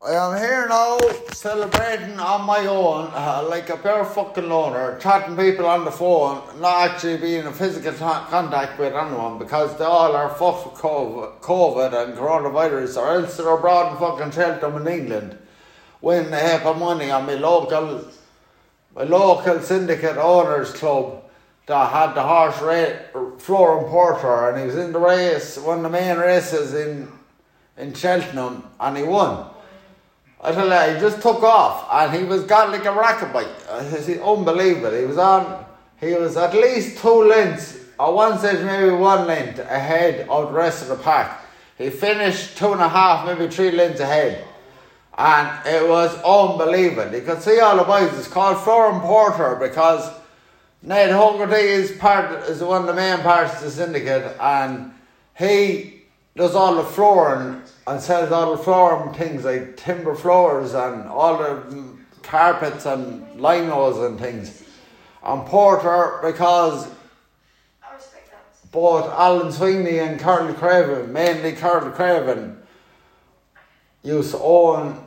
I am here now, celebrating on my own, like a bare fucking loner, chatting people on the phone, not actually being in physical contact with anyone because they all are fucked with COVID and coronavirus, or else they're abroad in fucking Cheltenham in England, winning a heap of money on my local syndicate owners club that had the horse Flooring Porter, and he was in the race, one of the main races in Cheltenham, and he won. I tell you, he just took off and he got like a racket bike. It's unbelievable. He was at least 2 lengths, at one stage maybe 1 length ahead of the rest of the pack. He finished 2.5, maybe 3 lengths ahead. And it was unbelievable. You could see all the boys. It's called Flooring Porter because Ned Hoggerty is one of the main parts of the syndicate, and he does all the flooring and sells all the flooring things like timber floors and all the carpets and linos and things. And Porter, because both Alan Sweeney and Carl Craven, mainly Carl Craven, used to run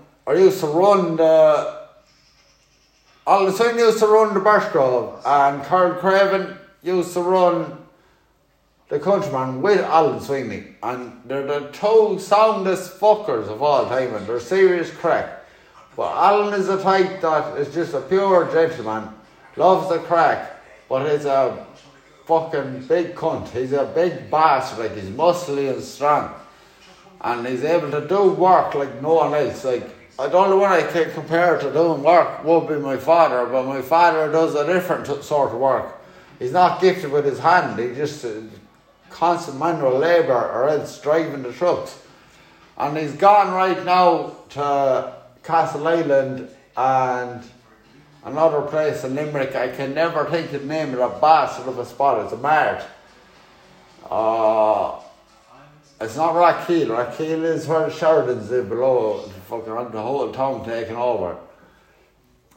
Alan Sweeney used to run the Birchgrove, and Carl Craven used to run the Countryman with Alan Sweeney, and they're the 2 soundest fuckers of all time, and they're serious crack. But Alan is the type that is just a pure gentleman, loves the crack, but he's a fucking big cunt. He's a big bastard, like he's muscly and strong, and he's able to do work like no one else. Like, the only one I can compare to doing work would be my father, but my father does a different sort of work. He's not gifted with his hand, he just constant manual labour or else driving the trucks. And he's gone right now to Castle Island and another place in Limerick. I can never think of the name of the bastard of a spot. It's a mart. It's not Rathkeale. Rathkeale is where the Sheridans live below, fucking the whole town taken over.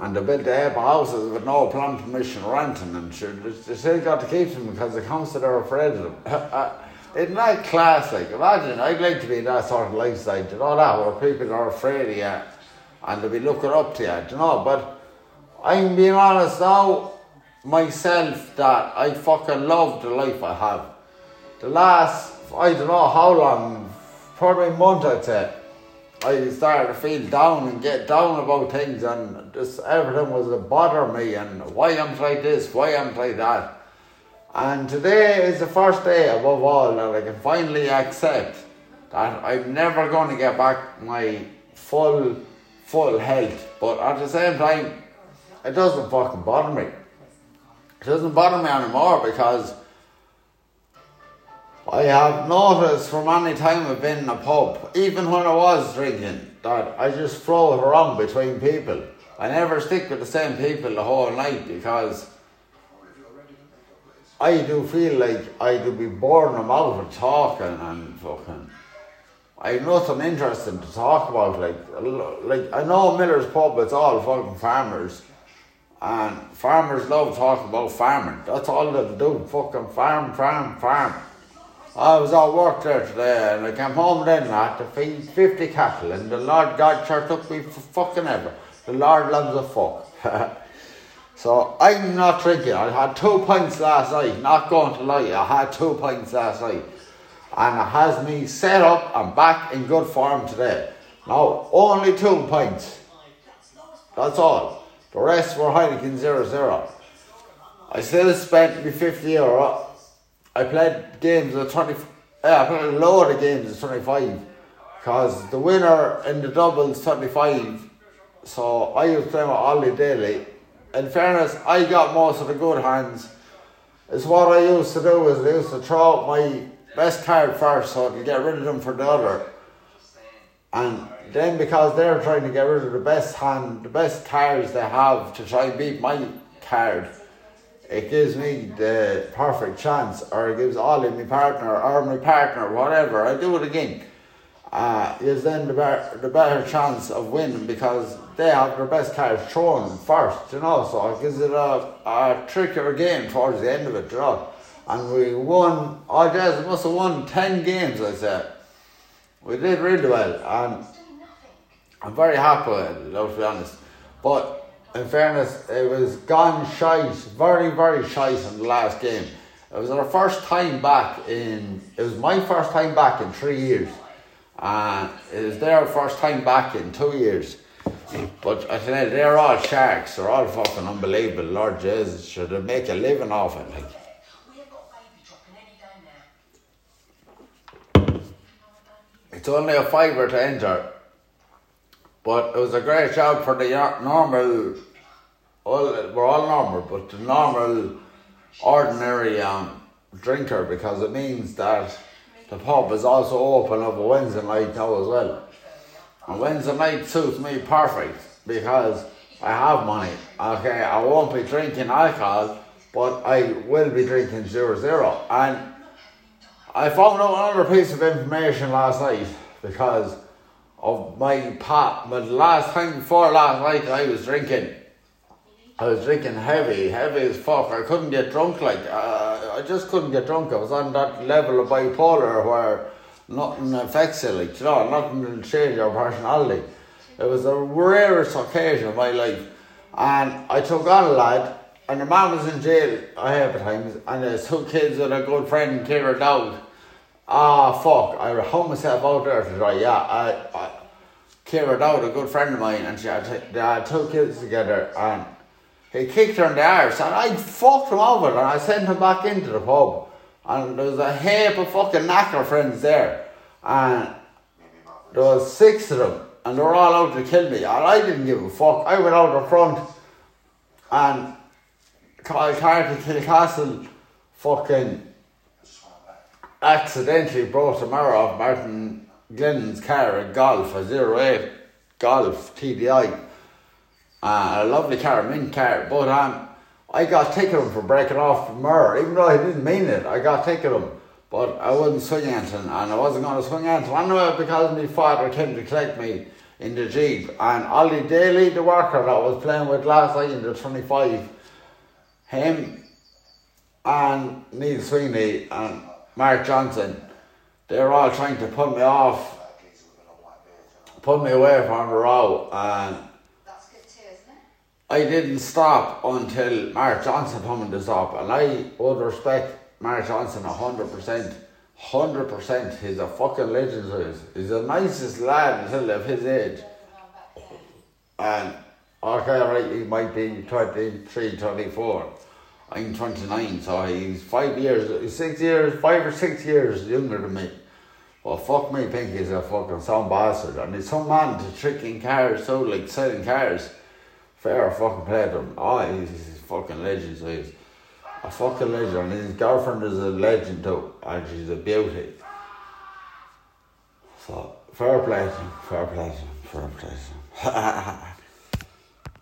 And they built the heap of houses with no plan permission or anything, and sure, they still got to keep them because the council are afraid of them. Isn't that classic? Imagine, I'd like to be in that sort of lifestyle, you know that, where people are afraid of you and they'll be looking up to you, you know. But I'm being honest now, myself, that I fucking love the life I have. The last, I don't know how long, probably a month I'd say, I started to feel down and get down about things, and just everything was to bother me, and why I'm like this, why I'm like that. And today is the first day above all that I can finally accept that I'm never going to get back my full health. But at the same time, it doesn't fucking bother me. It doesn't bother me anymore because I have noticed from any time I've been in a pub, even when I was drinking, that I just float around between people. I never stick with the same people the whole night because I do feel like I do be boring them out of talking and fucking... I have nothing interesting to talk about. Like I know Miller's Pub, it's all fucking farmers. And farmers love talking about farming. That's all they do, fucking farm. I was at work there today and I came home then to feed 50 cattle, and the Lord God sure took me for fucking ever. The Lord loves a fuck. So I'm not drinking. I had 2 pints last night, not going to lie, I had 2 pints last night. And it has me set up and back in good form today. Now, only 2 pints. That's all. The rest were Heineken 0-0. I still spent me €50. I played games at 20. I played a load of games at 25 because the winner in the doubles 25. So I was playing with Ollie Daly. In fairness, I got most of the good hands. It's what I used to do is I used to throw out my best card first so I could get rid of them for the other. And then because they're trying to get rid of the best cards they have to try and beat my card, it gives me the perfect chance, or it gives Ollie, my partner, whatever, I do it again. Gives them the better chance of winning because they have their best cards thrown first, you know, so it gives it a trickier game towards the end of it, you know. And we won, we must have won 10 games, I said. We did really well, and I'm very happy with it, to be honest. But in fairness, it was gone shite, very, very shite in the last game. It was our first time back it was my first time back in 3 years. And it was their first time back in 2 years. But I tell you, they're all sharks. They're all fucking unbelievable. Lord Jesus, should they make a living off it? Like. It's only a fiver to enter. But it was a great job for the normal, we're all normal, but the normal, ordinary drinker, because it means that the pub is also open up a Wednesday night now as well. And Wednesday night suits me perfect because I have money. Okay, I won't be drinking alcohol, but I will be drinking 0-0. And I found out another piece of information last night because of my pop. But last time before last night I was drinking heavy as fuck. I couldn't get drunk, I just couldn't get drunk. I was on that level of bipolar where nothing affects you, nothing will change your personality. It was the rarest occasion of my life. And I took on a lad, and the man was in jail a heap of times, and there's 2 kids with a good friend, Kira Dowd. I hung myself out there to try, Kira Dowd, a good friend of mine, and they had 2 kids together, and he kicked her in the arse, and I fucked him over, and I sent him back into the pub. And there was a heap of fucking knacker friends there, and there was 6 of them, and they were all out to kill me, and I didn't give a fuck. I went out the front, and Carty Kilcastle fucking accidentally brought the mirror off Martin Glennon's car at Golf, a 08 Golf TDI. A lovely car, mint car, but I got ticketed for breaking off the mirror, even though I didn't mean it. I got ticketed, but I wouldn't swing anything, and I wasn't going to swing anything. I know because my father came to collect me in the Jeep, and Ollie Daly, the worker that I was playing with last night in the 25, him and Neil Sweeney and Mark Johnson, they were all trying to pull me away from the row, and I didn't stop until Mark Johnson told me to stop, and I would respect Mark Johnson 100%. 100%. He's a fucking legend. He's the nicest lad until of his age. And okay, right, he might be 23, 24. I'm 29, so he's 5 or 6 years younger than me. Well, fuck me, Pinky's a fucking sound bastard, and he's some man to tricking cars, selling cars. Fair fucking play to him. He's a fucking legend, so he's a fucking legend, and his girlfriend is a legend too, and she's a beauty. So, fair play to him.